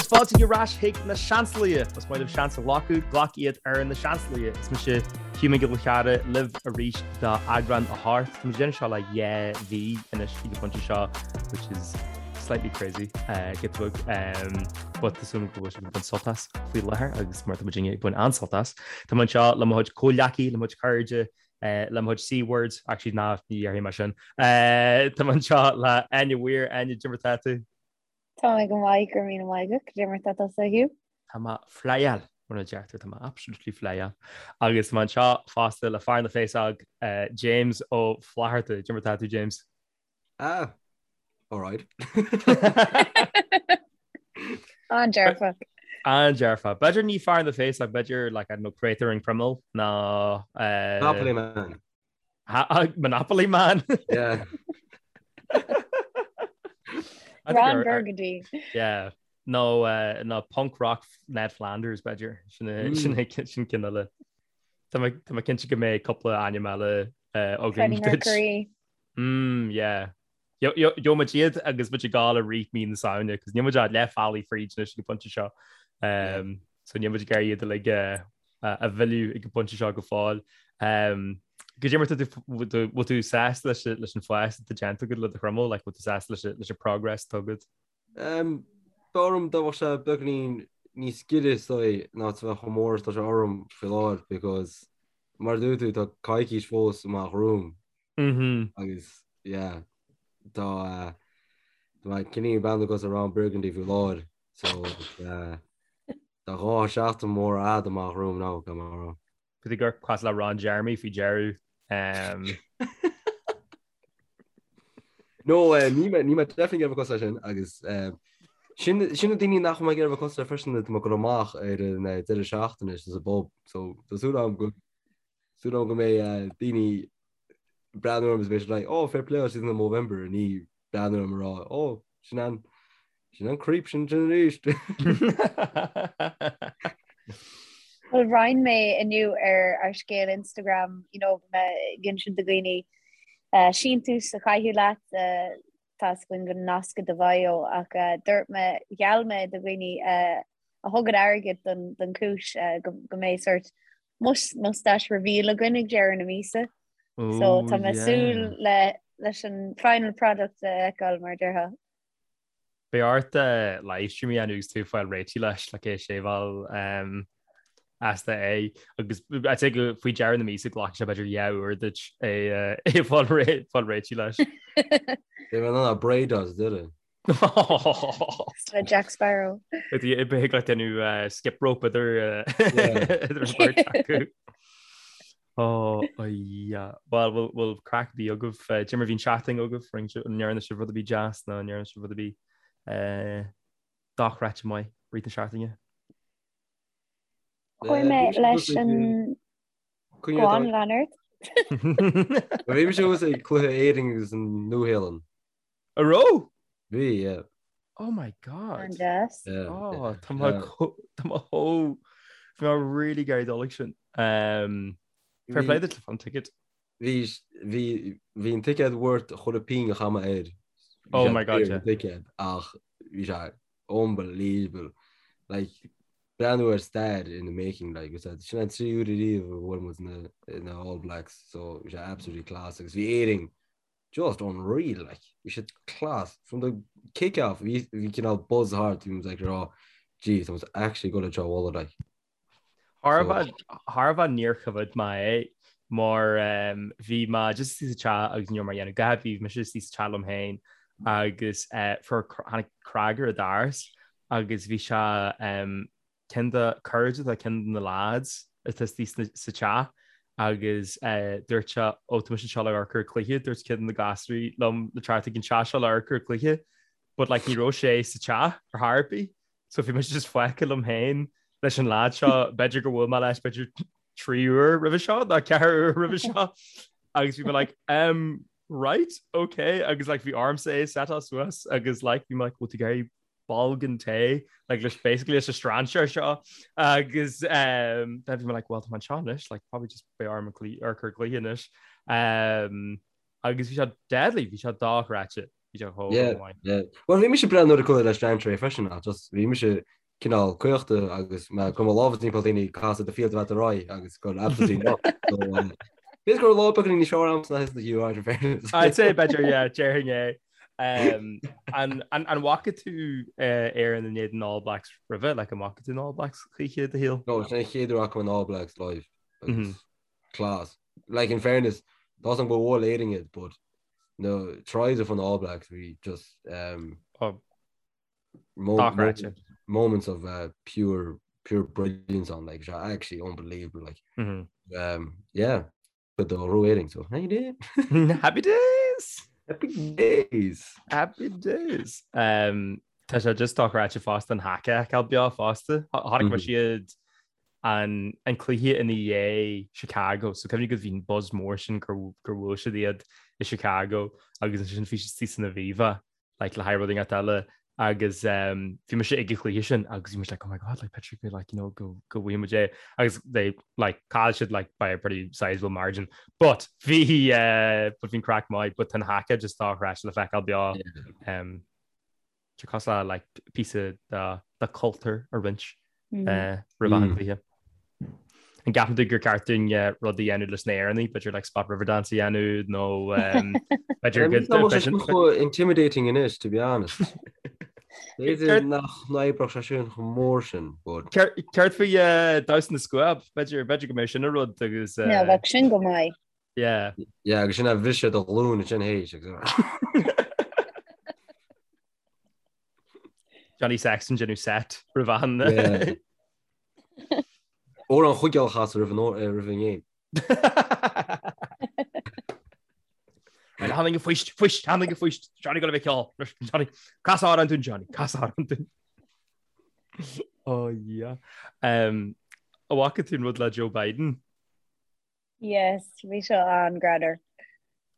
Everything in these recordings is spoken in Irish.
Agus fáilte ar ais chuig na Seansálaithe! Más maith libh seans a ghlacadh, glac iad ar na Seansálaithe! Is mise Hugh Mac Giolla Chearra libh arís do eagrán a hocht. Tá muid ag déanamh seo le dhá mhí anois ag an bpointe seo, which is slightly crazy, giota beag, but tá súil agam go bhfuil sibh ag baint sult as faoi láthair agus mar tá muidinne ag baint an-sult as. Tá mé anseo le mo chuid comhghleacaí, le mo chuid cairde, le mo chuid C-words, actually ná ní dhéarfaidh mé sin. Tá mé anseo le Áine Weir, Áine, cad é mar tá tú? Tá mé go maith, go raibh míle maith agat, cad é mar tá tusa, a Hugh? Tá mé flyáil, mar a deirtear, tá mé absolutely flyáil. Agus tá mé anseo fosta le fear na bhféasóg, James Ó Flatharta. Cad é mar tá tú, James? Ah, alright. An-dearfach. An-dearfach. B'fhéidir ní fear na bhféasóg, b'fhéidir, like, I don't know, créatúr an chromail ná... Monopoly man. Monopoly man? Yeah. Ron Burgundy. Yeah. Nó uh, nó punk rock Ned Flanders b'fhéidir sin mm. sin sin ceann eile. Tá mé cinnte go mbeidh cúpla ainm eile uh, againn. Freddie Mercury. Mm, yeah. Gheobhaidh muid iad agus muid ag gabháil i rith mí na Samhna, cos níl muid ach leath bealaigh fríd anois ag an bpointe seo. Um, so níl muid ag iarraidh iad uilig a, a mhilleadh ag an bpointe seo go fóill. Um, cad é mar tá tú bhfuil tú sásta leis leis an fás atá déanta agat le do chroiméal, like, bhfuil tú sásta leis leis an progress atá agat? Um, b'fhearr liom dá mbeadh sé beagáinín níos giorra is dóigh ná a bheith chomh mór is tá sé orm faoi láthair because mar a dúirt tú tá coicís fós amach romham Agus yeah tá tá mé cineál ag breathnú cosúil le Ron Burgundy faoi láthair so tá dhá sheachtain mór fhada amach romham now gan mar rá. Bhí tú ag amharc cosúil le Ron Jeremy faoi deireadh. No níl mé níl mé definitely ag iarraidh cosúil leis sin agus sin sin na daoine nach bhfuil mé ag iarraidh cosúil le freisin tá mé ag dul amach ar an deireadh seachtaine sa bpub so tá súil agam go súil agam go mbeidh daoine ag breathnú orm is beidh siad like oh fair play siad in Movember ní breathnú orm ag rá oh sin an sin an creep sin sin arís. Well roinn mé inniu ar ár scéal Instagram you know mé ag insint do dhaoine uh, síntiús a chaitheamh leat uh, tá a fhios againn go nascadh do bhio ach uh, dúirt mé gheall mé do dhaoine uh, a thugann airgead don, don chúis uh, go, go mbeidh sort Mustache reveal againn ag deireadh na míosa. So tá mé súil le leis an final product a fheiceáil mar a déarfá. Beidh ort livestream a dhéanamh agus tú ag fáil réitithe leis le é seiceáil as é agus I'd say go faoi deireadh na míosa glacfaidh sé b'fhéidir dhá uair duit é é fáil réitithe leis. Beidh mé in ann braid as deireadh. Le Jack Sparrow. Beidh le déanamh skip rope idir idir an bheirt acu. Oh, yeah. Well, bhfuil bhfuil craic ar bith agaibh. Cad é mar a bhí an tseachtain agaibh, an ndearna sibh rud ar bith deas nó an ndearna sibh rud ar bith dochreidte maith i rith na seachtaine? Chuaigh mé leis an Go on, lean ort. Bhí mise thuas ag cluiche Éirinn agus an Nua-Shéalainn. A raibh? Bhí, yeah. Oh my God. An-deas. Yeah. Oh, tá mé tá mé chomh bhí mé really ag iarraidh dul ag sin. Um, fair play duit an ticket. Bhí bhí bhí an ticket worth chuile phingin a chaith mé air. Oh my God, yeah. Ticket ach bhí sé unbelievable. Like breathnú ar stair in the making like is that sin an tríú huair ariamh a bhuail muid na na All Blacks so bhí sé absolutely class agus bhí Éirinn just unreal like bhí siad class from the kick off bhí bhí cineál buzz thart bhí muid like ag rá jeez tá muid actually ag dul seo a bhualadh like Thar a bheith thar a bheith níor choimhéad mé é mar um, bhí mé just istigh sa teach agus ní raibh mé ag déanamh a dhath bhí mise istigh sa teach liom féin agus uh, fuair tháinig cnag ar an doras agus bhí sé um, ceann de cairde de ceann de na lads atá istigh sa teach agus dúirt sé ó tá mise anseo le amharc ar an cluiche, dúirt ceann de na gasúraí liom le teacht ag an teach seo le amharc ar an cluiche but like ní raibh sé sa teach ar chor ar bith so bhí mise just fágtha liom féin leis an lad seo b'fhéidir gur bhuail mé leis b'fhéidir 3 uair roimhe seo nó 4 uair roimhe seo agus bhí mé like um right okay agus like bhí ormsa é setáil suas agus like bhí mé like bhfuil tú ag iarraidh bolgán tae like leis basically leis an strainséir seo agus um, then bhí mé like well tá mé anseo anois like probably just beidh orm amharc ar an gcluiche anois um, agus bhí sé deadly bhí sé dochreidte. Bhí sé chomh Yeah, maith. yeah. Well, bhí mise breá nuair a chuala leis an tré freisin ach just bhí mise cineál caochta agus mé ag cur mo lámha timpeall daoine ag casadh the field about the rye agus gur absolutely not. So, b'fhéidir go raibh lá beagáinín níos fearr a'msa ná thusa Hugh, right, in fairness. I'd say b'fhéidir, yeah, déarfainn é. Um, an, an, an bhfaca tú uh, Éirinn in éadan All Blacks roimhe, like an bhfaca tú an All Blacks choíche i do shaol? No, sin an chéad uair a fhaca mé an All Blacks live. Agus mm -hmm. class. Like in fairness, tá a fhios a'm gur bhuail Éirinn iad, but na tries of an All Blacks bhí just um, oh. mo moments of uh, pure pure brilliance on like actually unbelievable like mm -hmm. um, yeah but the rating so how you doing happy days happy days happy days um Tá sé just dochreidte fosta an haka a fheiceáil beo fosta. Chonaic mé siad an an cluiche ina dhiaidh Chicago, so cuimhnigh go bhí an buzz mór sin gur gur bhuail siad iad i Chicago agus ansin bhí siad istigh san Aviva like le haghaidh rud inteacht eile agus um, bhí mise ag an chluiche sin agus bhí mise like oh my god like Patrick like you know go go bhfuair muid é agus they like chaill siad like by a pretty sizable margin but bhí uh, but bhí an craic maith but an haka just dochreidte le feiceáil beo um, Tá cosúil le like píosa de cultúr a roinnt roimh an gcluiche. An gceapann tú gur ceart dúinn rud a dhéanamh leis na hÉireannaigh, b'fhéidir like Spot Riverdance a dhéanamh nó b'fhéidir go Tá sé chomh intimidating anois, to be honest. B'fhéidir nach n-oibreodh sé sin chomh mór sin, but. Céard faoi damhsa na scuab? B'fhéidir b'fhéidir go mbeadh sin an rud agus. Yeah, bheadh sin go maith. Yeah. Yeah, agus sin a bhriseadh do ghlúin ansin théis agus. Johnny Sexton déanamh set roimh an. Yeah. Amhrán Chuigéal a chasadh roimh an roimh an game. Right, tháinig an phoist, phoist, tháinig an phoist, Johnny go bheith ceol. Johnny, cas amhrán dúinn Johnny, cas amhrán dúinn. Oh yeah. Um, an bhfaca tú an rud le Joe Biden? Yes, bhí seo an-ghreannmhar.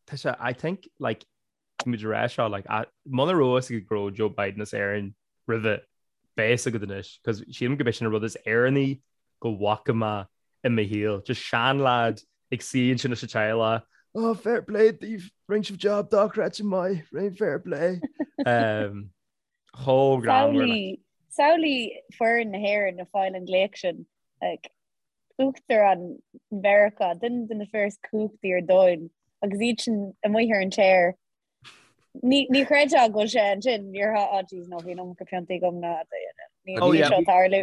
Tá sé, I think, like, muid a rá seo, like, muna raibh fhios agat go raibh Joe Biden as Éirinn roimhe, beidh fhios agat anois, cos sílim go b'é sin an rud is Éireannaí go bhfaca mé i mo shaol. Just seanleaid ag suí ansin leis an teaghlach, oh, fair play daoibh, rinne sibh job dochreidte maith, rinne fair play. Um, chomh greannmhar. Samhlaigh, samhlaigh foireann na hÉireann ag fáil an glaoch sin, like, Uachtarán Mheiriceá, duine de na fir is cumhachtaí ar domhan, agus iad sin amuigh ar an chair. Ní ní chreidfeá go bhfuil sé ansin, níor thá oh jeez no bhí an iomarca piontaí agam ná ní Oh, níl yeah. seo tarlú.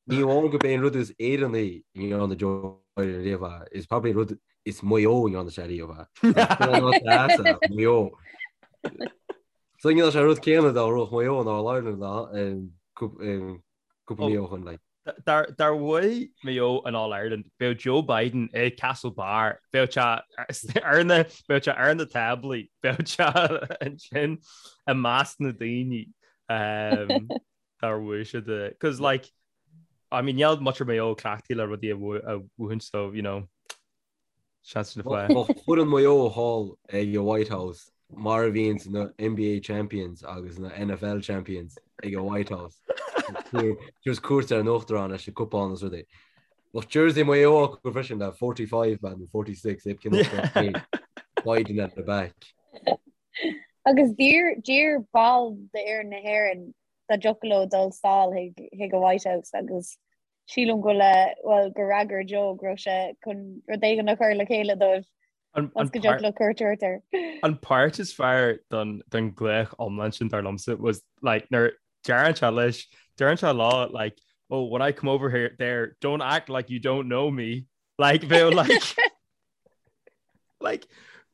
Ní amháin gurb é an rud is Éireannaí i ndearna Joe Biden riamh é, is probably an rud is Maigh Eo a ndearna sé riamh é. Maigh Eo. So dhéanfadh sé an rud céanna dá raibh Maigh Eo in All Ireland cúpla mí ó shin like. Dá bhuaigh Maigh Eo an All Ireland, bheadh Joe Biden i Castlebar, bheadh sé ar na, bheadh sé ar na táblaí, bheadh sé ansin i measc na daoine dár bhuaigh siad. Cos like, I mean, níl muintir Mhaigh Eo cleachtaithe le rudaí a bhuachan so, you know, Seans na fáth. Bheadh foireann Mhaigh Eo thall ag an White House mar a bhíonns na NBA champions agus na NFL champions ag an White House. Just cuairt ar an Uachtarán leis na cupáin is rudaí. Bheadh jersey Mhaigh Eo acu freisin le 45 man nó 46 ib cinn Biden at the back. Agus d'iarr ball d'fhoireann na hÉireann dá dtiocfadh leo dul sall chuig an White House agus Sílim go bhfuil, bhuel, gur fhreagair Joe go raibh sé chun rud éigin a chur le chéile dóibh agus go dtiocfadh leo cuairt a thabhairt air. An páirt is fearr den ghlaoch iomlán sin dar liomsa was like nuair deireann sé leis, deireann sé leo like oh when I come over here there don't act like you don't know me like bheadh like like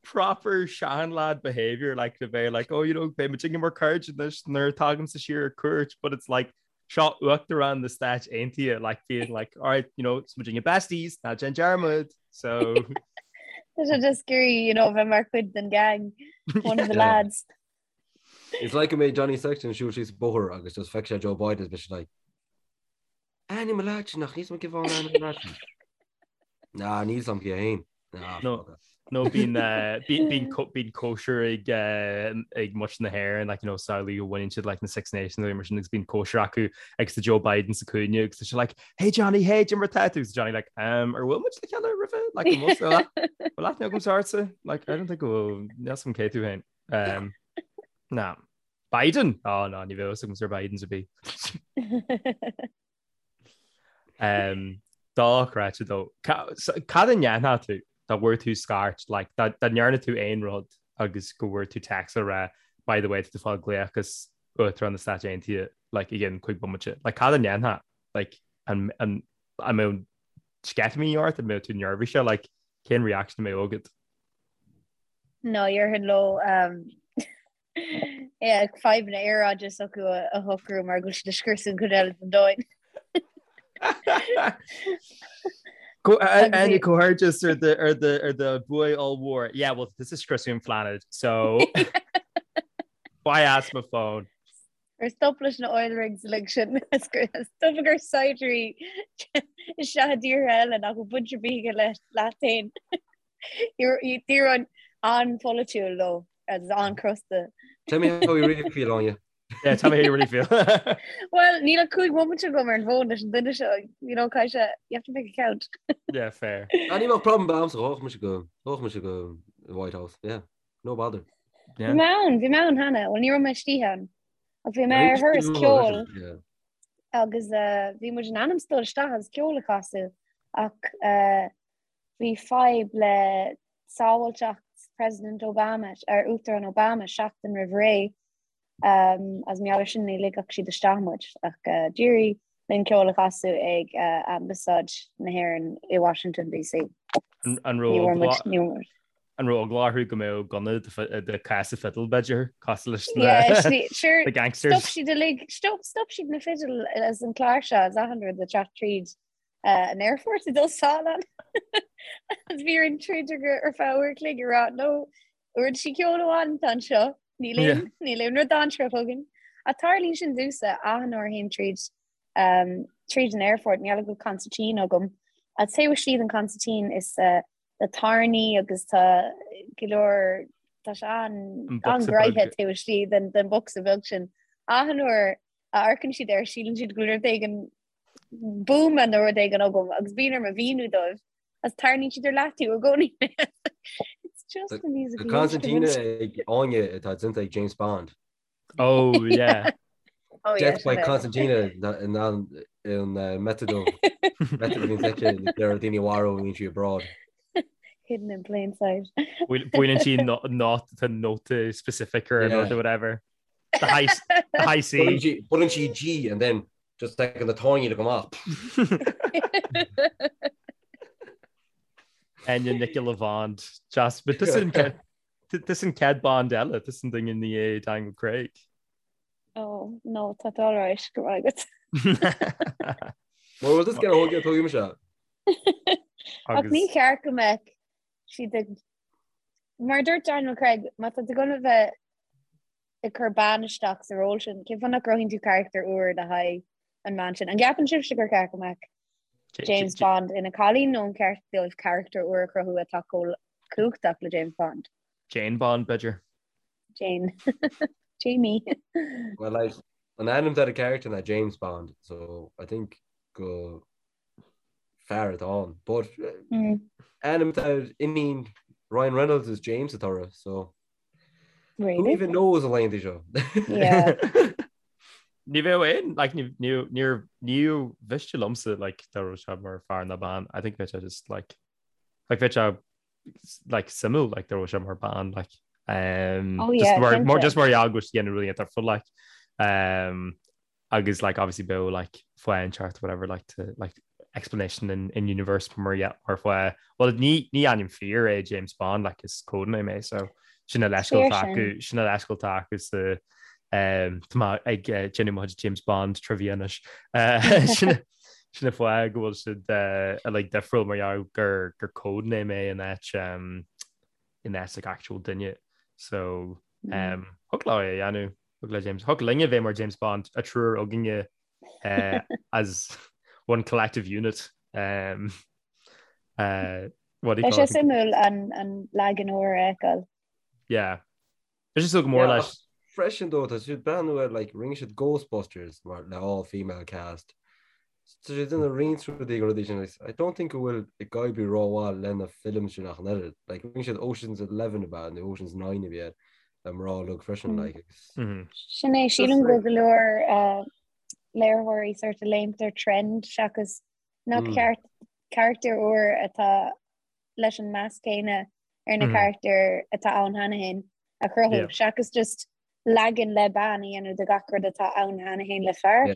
proper seanlad behaviour like to bheith like oh you know beidh muid mar cairde anois nuair tagaimse siar ar cuairt but it's like seo Uachtarán na Stáit Aontaithe like being like alright you know is muidinne besties ná déan dearmad so Tá sé just scary you know bheith mar chuid den gang one of the lads. It's like go mbeidh Johnny Sexton ag siúl síos an bóthar agus just feicfidh sé Joe Biden is beidh sé like Ainm a leat nach níos mó cibhán ainm a leat. Ná níl 's a'm cé fhéin. No no bíonn bíonn cóisir ag ag muintir na hÉireann like you know samhlaigh go bhaineann siad like na Six Nations nó mar sin agus bíonn cóisir acu agus tá Joe Biden sa cúinne agus tá sé like hey Johnny hey cad é mar atá tú agus Johnny like um ar bhuail muid le chéile roimhe like an bhfuil bhfuil aithne agam ortsa like I don't think go bhfuil níl 's a'm cé tú féin um. Ná. Biden? Ó ná, ní bheadh fhios agam ar Bidens a bhí. Dochreidte though. Cad a ndéanfadh tú dá bhfuair tú scairt, like, dá ndearna tú aon rud agus go bhfuair tú text a rá by the way tá tú ag fáil glaoch as Uachtarán na Stáit Aontaithe like i gcionn 5 bomaite. Like cad a ndéanfá? Like an an an mbeadh sceitimíní ort, an mbeadh tú neirbhíseach, like cén reaction a mbeadh agat? No, déarfainn leo yeah, fadhbanna aeráide s'acu a shocrú mar go bhfuil siad ag scriosadh an chuid eile den domhan. Áine comhghairdeas ar do ar do ar do bhuaidh ollmhór. Yeah, well, this is scriosadh an planet, so why ask my phone? Ar stop leis na oil rigs uilig sin stop ag cur saighdiúirí isteach i dtíortha eile nach bhfuil baint ar bith aige leat féin. Déarfainn an-pholaitiúil leo agus an-chrosta. Tell me how you really feel, Áine. Yeah, tell me how you really feel. Well, níl ach 5 bomaite agam ar an bhfón leis an duine seo, you know, caithfidh sé, you have to make it count. Yeah, fair. Ah, ní bheadh problem a'msa, ghabhfadh mise go, ghabhfadh mise go White House, yeah, no bother. Yeah. Bhí mé ann, bhí mé ann cheana, well ní raibh mé istigh ann. Ach bhí mé ar thuras ceoil Yeah. agus eh, bhí muid in ainm 's dul isteach agus ceol a chasadh ach eh, Bhí fadhb le sábháilteacht President Obama, ar Uachtarán Obama seachtain roimh ré agus mar gheall air sin ní ligfeadh siad isteach muid ach d'éirigh linn ceol a chasadh ag Ambasáid na hÉireann i Washington DC. An raibh an raibh eagla orthu go mbeadh gunna de cása fidil b'fhéidir cosúil leis na gangsters? Stop siad uilig, stop siad na fidil as an cláirseach as achan rud ag teacht tríd an aerfort ag dul sall ann. Agus bhí orainn troid ar feadh uair a chloig ag rá no uirlisí ceoil amháin atá anseo níl aon níl aon rud dainséarach chugainn. Ach tarlaíonn sin domhsa achan uair a théim tríd um, tríd an aerfort níl go consairtín agam. A taobh istigh den consairtín is uh, tá tairní agus tá go leor tá sé an an-ghnoitheach taobh istigh den den bocsa beag sin. Achan uair a amharcann siad air síleann siad go bhfuil rud éigin buama nó rud éigin agam agus bíonn orm a mhíniú dóibh agus tarraingíonn siad ar leataobh i gcónaí. It's just a musical Tá concertina ag Áine atá déanta ag James Bond. Oh yeah. Oh, yeah, Death by sin é. Concertina in an in uh, method of method of inspection there are daoine mharbhú bíonn sí abroad. Hidden in plain sight. Buaileann sí not tá nóta specific or Yeah. or whatever. The high the high C. Buaileann sí G and then Just taking the tairní go amach. Áine Nicola Bond. Just, but this an this an chéad Bond eile, this an duine i ndiaidh Daniel Craig. Oh, no, tá all right, go raibh agat. Well, this get a whole get tuigim se. Ach ní ceart go mbeadh siad ag mar dúirt Daniel Craig má tá tú gonna bheith ag cur bean isteach sa ról sin, cén fáth nach gcruthaíonn tú carachtar úr le haghaidh an mbean sin? An gceapann sibhse gur ceart go mbeadh James Bond ina cailín nó an ceart dóibh carachtar úr a chruthú atá chomh cumhachtach le James Bond? Jane Bond, b'fhéidir. Jane. Jamie. Well, like, an ainm ar an character ná James Bond, so I think go fear atá ann. But mm. ainm ar iníon Ryan Reynolds is James atá uirthi, so Really? Who even knows a laethanta seo? Yeah. Ní bheadh aon, like, ní níor ní mhiste liomsa, like, dá raibh sé mar fear ná bean. I think bheadh sé just, like, like, bheadh sé, like, suimiúil, like, dá raibh sé mar bean, like, um, Oh, just yeah, mar, mar, cinnte. just mar gheall go bhfuil siad ag déanamh rudaí atá full, like, um, agus like obviously bheadh like fáth inteacht whatever like to like explanation in in universe mar yeah mar fáth well ní ní ainm fíor é James Bond like is codename é so sin a leithscéal Fíor atá sin. acu sin a leithscéal atá acu sa um tá mé ag eh, déanamh mo chuid James Bond trivia anois Eh, sin sin an fáth go bhfuil siad eh, like difriúil mar gheall gur gur codename é in áit um in áit like actual duine so um thig leo é a dhéanamh Thig le James. Thig linne bheith mar James Bond, an triúr againne uh, as one collective unit. Um, uh, what do you Beidh call sé it? suimiúil an, an leagan úr a fheiceáil. Yeah. Is sé go mór Yeah, leis. ach freisin though, tá siad breathnú ar like rinne siad Ghostbusters mar le all female cast. Tá siad ina roinnt rudaí go rudaí sin like, I don't think go bhfuil ag oibriú rómhaith lena film sin ach an oiread. Like rinne siad Ocean's 11 about nó Ocean's 9 a bhí air. le mná uilig freisin like agus. Sin é, sílim go bhfuil go leor léiritheoirí sort of léimt ar trend seachas nach ceart carachtar úr atá leis an meas céanna ar na carachtair atá ann cheana féin a chruthú seachas just leagan le bean a dhéanamh de gach rud atá ann cheana féin le fear.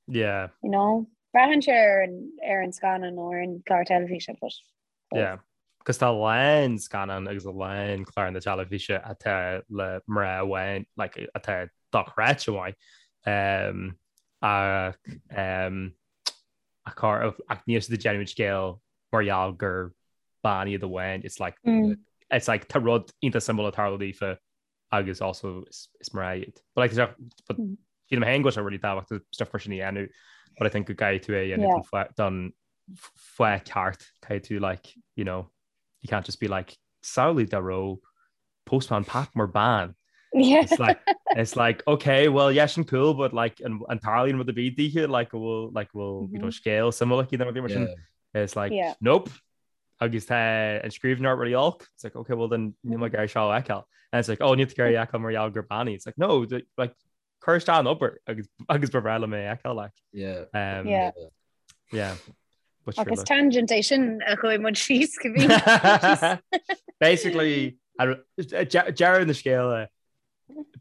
Yeah. You know? Braitheann sé ar an ar an scannán nó ar an chlár teilifíse but Yeah. Cos tá a lán scannán agus a lán cláranna teilifíse atá le mná amháin, like, atá dochreidte maith. Um, ach, um, ach, ach níl siad ag déanamh an scéal mar gheall gur bean iad amháin. It's like, mm. it's like tá rud iontach suimiúil ag tarlú daofa agus also is, is mná iad. But like, but mm. sílim féin go bhfuil sé really tábhachtach stuff mar sin a dhéanamh, but I think go gcaithfidh tú é a dhéanamh yeah. don fáth ceart caithfidh tú like, you know, you can't just be like samhlaigh dá raibh Postman Pat mar bean. Yeah. It's like it's like okay, well yeah, sin cool, but like an an tarlaíonn rud ar bith daoithe like bhfuil like bhfuil mm -hmm. you know mm-hmm. scéal suimiúil aici nó mar sin. Yeah. It's like yeah. nope. Agus tá an scríbhneoireacht really olc. It's like okay, well then níl mé ag iarraidh seo a fheiceáil. And it's like oh níl tú ag iarraidh a fheiceáil mar gheall gur bean í. It's like no, like cuir isteach an obair agus agus ba bhreá liom é a fheiceáil like. Yeah. Um, yeah. Yeah. But sure, Agus tangent é sin a chuaigh muid síos go bhí. Basically, deireadh na scéala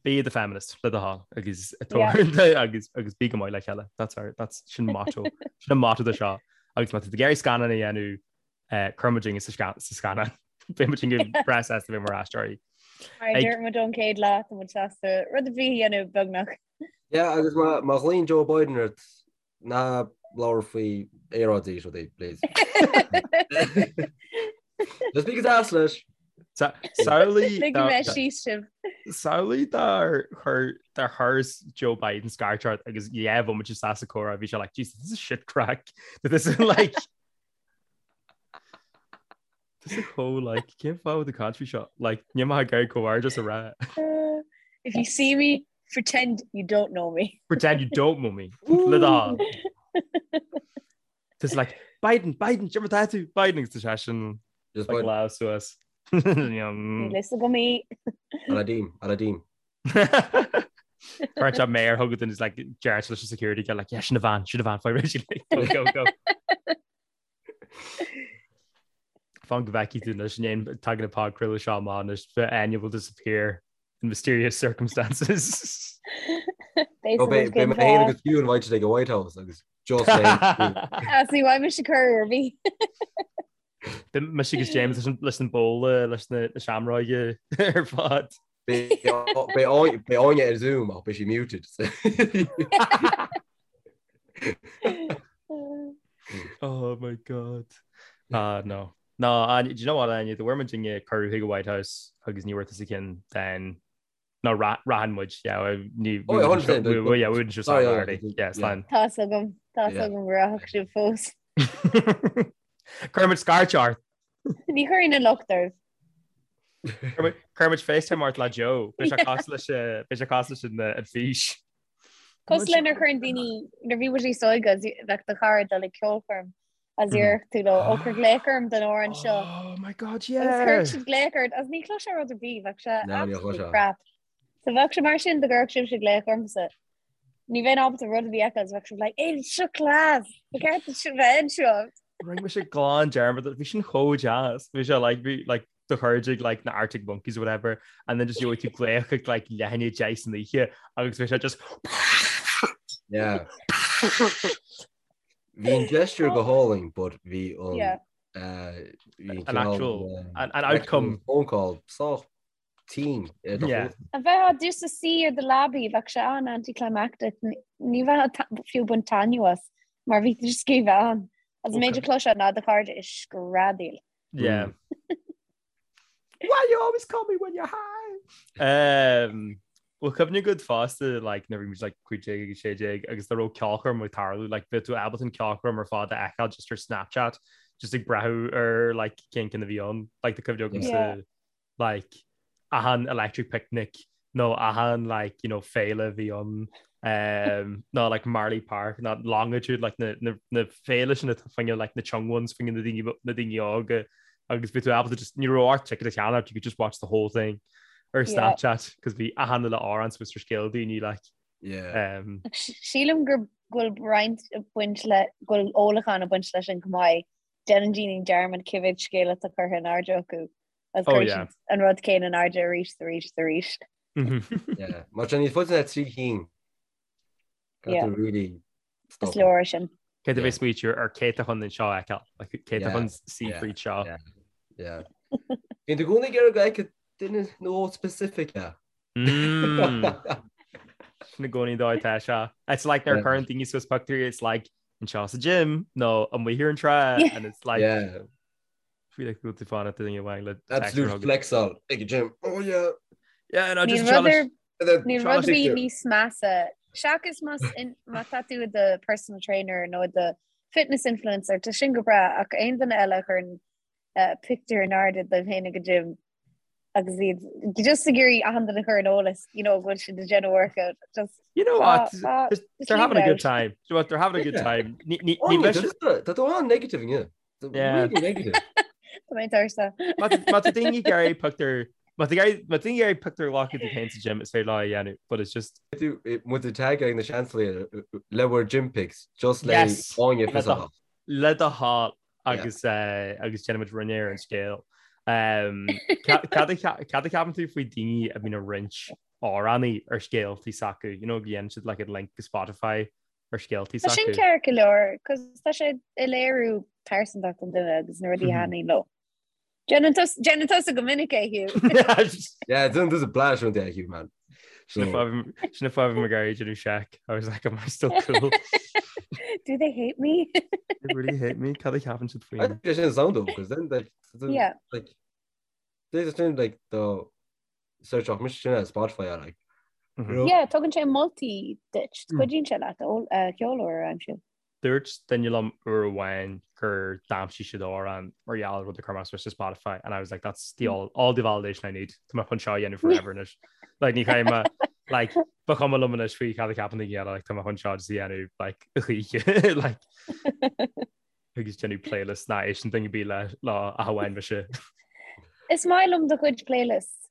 be the feminist le do thoil agus agus agus bí go maith le chéile. That's our that's sin motto sin an motto de seo agus má tá tú ag iarraidh scannán a dhéanamh eh, cuir muid sa scannán. Beidh muid go breá sásta bheith mar aisteoirí. Mar a dúirt muid ón chéad lá tá muid sásta rud ar bith a dhéanamh beagnach. Yeah, agus má má ghlaonn Joe Biden ort ná labhair faoi aeráid is rudaí, please. Just bí go deas leis. Samhlaigh Ligfidh mé síos sibh. Samhlaigh dár chuir dár chuir Joe Biden scairt ort agus yeah bhí muid isteach sa chomhrá bhí sé like Jesus this is shit craic. This is like This is chomh like cén fáth the country seo like ní maith ag comhghairdeas a rá. If you see me, pretend you don't know me. Pretend you don't know me. Le do thoil. Just like Biden, Biden, cad é mar atá tú Biden agus tá sé sin Just like Biden. lá suas. Níl fhios agam í. Aladdin, Aladdin. Cuireann sé méar chugat and is like deir leis an security guy like yeah sin a bhean, sin a bhean, faoi réidh like go go go. Fan go bhfeicfidh tú anois an tagann an podchraoladh seo amach anois Áine will disappear in mysterious circumstances. Beidh mé féin agus Hugh invited ag an White House agus just mé. As ní bhfaighidh mise cuireadh ar bith. Mise agus James leis an bóla leis na seamróige ar fad. Beidh Áine ar Zoom ach beidh sí muted. Oh my god. Ah no. No, Áine, do you know what Áine, dá bhfuair muidinne cuireadh chuig an White House agus ní bhfuair tusa ceann then no rachaidh muid yeah ní Oh, yeah, 100%. yeah, we wouldn't just Sorry, yeah, yeah, yeah, slán. Tá 's agam, tá 's agam go rachadh sibh fós. Cuirfidh muid scairt ort. Ní chuirfinn an locht oraibh. Cuirfidh muid FaceTime ort le Joe. Beidh sé cosúil leis beidh sé cosúil leis an an fís. Cosúil le nuair a chuireann daoine, nuair a bhí muid níos óige agus bheadh do chara ag dul ag ceolchoirm agus iarrfadh tú leo, ó cuir glaoch orm don amhrán seo. Oh my god, Agus yeah! chuirfeadh siad glaoch ort agus ní chloisfeá rud ar bith, bheadh sé No, ní absolutely chloisfeá. crap. So bheadh sé mar sin dá gcuirfeadh sibhse glaoch ormsa. Ní bheinn ábalta rud ar bith a fheiceáil, bheadh sibh like, Hey, seo class! Ba cheart duit bheith anseo. Rinne mise glan dearmad, bhí sin chomh deas. Bhí sé like, bhí like do chairde ag like na Arctic Monkeys or whatever and then just gheobhaidh tú glaoch ag like leath i ndiaidh 10 san oíche agus bhí sé just Yeah. Bhí an gesture go hálainn, but bhí an Yeah. uh, bhí An cineál, actual- um, an- an outcome. phone call sách tinn ar do Yeah. chluas. A bheith just ag suí ar do leabaidh, bheadh sé an-anticlimactic. Ní bheifeá fiú ag baint taitneamh as, mar bhí tú just ag bheith ann. Agus an méid a chloisfeá ná do chairde ag screadaíl. Yeah. Why you always call me when you're high? Um, Bhfuil cuimhne agat fosta like, nuair a bhí muid like, 15 agus 16 agus dá raibh ceolchoirm ag tarlú like, bheadh tú ábalta an ceolchoirm ar fad a fheiceáil just ar Snapchat just ag breathnú ar like, cén ceann a bhí ann like, tá cuimhne agamsa Yeah. like achan Electric Picnic nó achan like you know féile a bhí ann um, nó like Marlay Park nó Longitude like na, na, na féile sin atá fá choinne like na young ones fá choinne na daoine na daoine óga agus bhí tú ábalta just ní raibh ort ticket a cheannach you could just watch the whole thing. Ar Snapchat, cos bhí achan uile amhrán suas ar scéal daoine like. Yeah. Sílim go bhfuil roinnt ag baint le go bhfuil ólachán ag baint leis sin chomh maith. Déanann daoine dearmad cé mhéad scéal atá curtha in airde acu agus oh, yeah. an rud céanna in airde arís arís arís. Yeah. Mar sin níos faide ná 3 cinn. Yeah. Really Is leor sin. Cé a bheith smaoitiú ar cé atá chun an seo a fheiceáil, like, cé atá chun suí fríd seo. Yeah. Bíonn tú i gcónaí ag iarraidh go bhfeicfidh duine nó dhó specific é. Sin i gcónaí dóigh tá seo. It's like nuair a chuireann daoine suas pictiúirí, it's like anseo sa gym nó amuigh ar an trá and it's like Yeah. feel like go bhfuil tú fanacht duine amháin le Absolute flexáil ag an gym. Oh yeah. Yeah, no, just Níl rud ar Níl rud ar bith níos measa seachas más má tá tú i do personal trainer nó i do fitness influencer tá sin go breá ach aon duine eile a chuireann pictiúr in airde dóibh féin ag an gym agus iad just ag iarraidh achan duine a chur ar an eolas you know go bhfuil siad ag déanamh workout just You know what? They're having a good time. You know what? They're having a good time. Ní ní ní bheidh Tá tú an-negative inniu. Yeah. Really negative. Tá mé tuirseach. Má tá daoine ag iarraidh pictiúr Má tá daoine ag iarraidh pictiúr a ghlacadh díobh féin sa gym is féidir leo a dhéanamh, but it's just. Muid ag tagáil na seansálaithe le bhur gym pics just le Yes! Áine fios a Le do thoil agus agus déanfaimid rinne ar an scéal. Cad a cheapann tú faoi daoine a bhíonn ag roinnt amhránaí ar scéaltaí s'acu, you know, go dhéanann siad like a link go Spotify ar scéaltaí Tá sin s'acu. ceart go leor, cos tá sé ag léiriú pearsantacht an duine agus na rudaí a thaitníonn leo. Déanann tusa go minic é, Hugh. Yeah, déanann tusa blast rud é, Hugh, man. Sin an fáth a bhí mé ag iarraidh déanamh seic. I was like, am I still cool? Do they hate me? They really hate me? Cad a cheapann siad faoi? I think sin sound though, because then like, yeah. like, there's a thing like the search mise sin ar Spotify ar like. Mm-hmm. Yeah, tugann sé moltaí duit, mm. cuidíonn sé leat ceol úr a aimsiú. Dúirt duine liom uair amháin gur d'aimsigh siad amhrán mar gheall ar rud a chuir mé suas ar Spotify and I was like that's the all, all the validation I need. Tá mé chun seo a dhéanamh forever anois. Like ní chaithfidh mé like ba chuma liom anois faoi cad a cheapann daoine eile like tá mé chun seo just a dhéanamh like a choíche like agus déanamh playlist nach éisteann duine ar bith le lá ach amháin mise. Is maith liom do chuid playlists.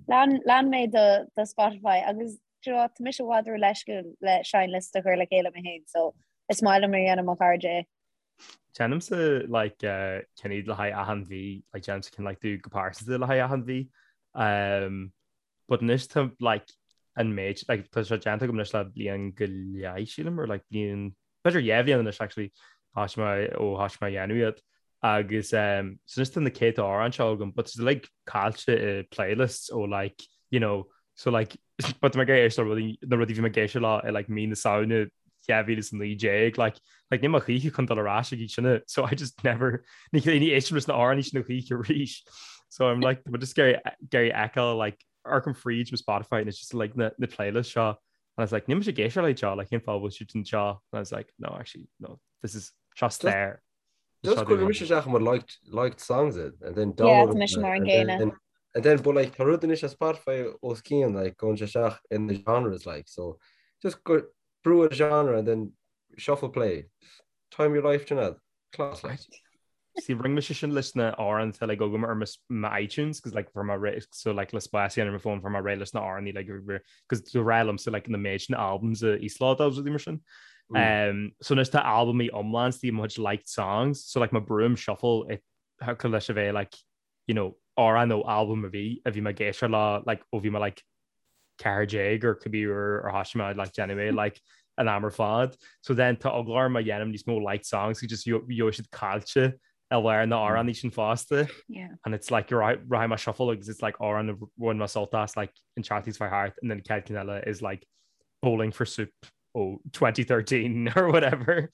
Lean lean mé do do Spotify agus do you know what, tá mise i bhfad ró-leisciúil le seinnliosta a chur le chéile mé féin so is maith liom nuair a dhéanann mo chairde é. Déanaimse like uh, cinn le haghaidh achan mhí, like déanaimse cinn like do go pearsanta le haghaidh achan mhí. Um, but anois tá like an méid like tá sé déanta agam anois le bliain go leith sílim or like bliain b'fhéidir 2 bhliain anois actually thosaigh mé ó thosaigh mé a dhéanamh iad agus um, so anois tá na céadta amhrán seo agam but it's like caillte i playlists ó like you know so like but tá mé ag éisteacht le rudaí na rudaí bhí mé ag éisteacht leo i like mí na Samhna 2019 like like níl mé choíche chun dul ar ais ag iad sin so I just never ní ní éistim leis na amhráin sin choíche arís so I'm like but just ag iarraidh a fheiceáil like amharcaim fríd mo Spotify and it's just like na na playlist seo And I was like, níl mise ag éisteacht le seo, like, cén fáth a bhfuil siad anseo? And I was like, no, actually, no, this is seo stair. Just cuir mise isteach mar liked, liked songs it, and then Yeah, download tá mise mar an and gcéanna. then, and then, but like, tá rud anois ar Spotify os cionn, like, gabhann sé isteach in the genres, like, so just go brú ar genre and then shuffle play. Time your life, Sinéad. Class, like. See, rinne mise sin leis na amhráin atá like agam ar mo iTunes, cos like fuair mé réidh, so like le spás a dhéanamh ar mo phone fuair mé réidh leis na amhráin like cos do rá liomsa like na méid sin albums a íoslódáil agus rudaí mar sin. Um, so anois tá albamaí iomlán istigh i mo chuid liked songs, so like má brúim shuffle it thiocfadh leis a bheith like you know, amhrán nó albam a bhí a bhí mé ag éisteacht leo like ó bhí mé like 14 or cibé uair ar thosaigh mé like déanamh é like an am ar fad. So then tá eagla orm má dhéanaim níos mó liked songs just gheobhaidh siad caillte i lár na amhránaí sin fosta. Yeah. And it's like you're right rachaidh mé shuffle agus it's like amhrán a bhain mé sult as like an tseachtain seo thart and then chéad ceann eile is like Bowling for Soup ó 2013 or whatever.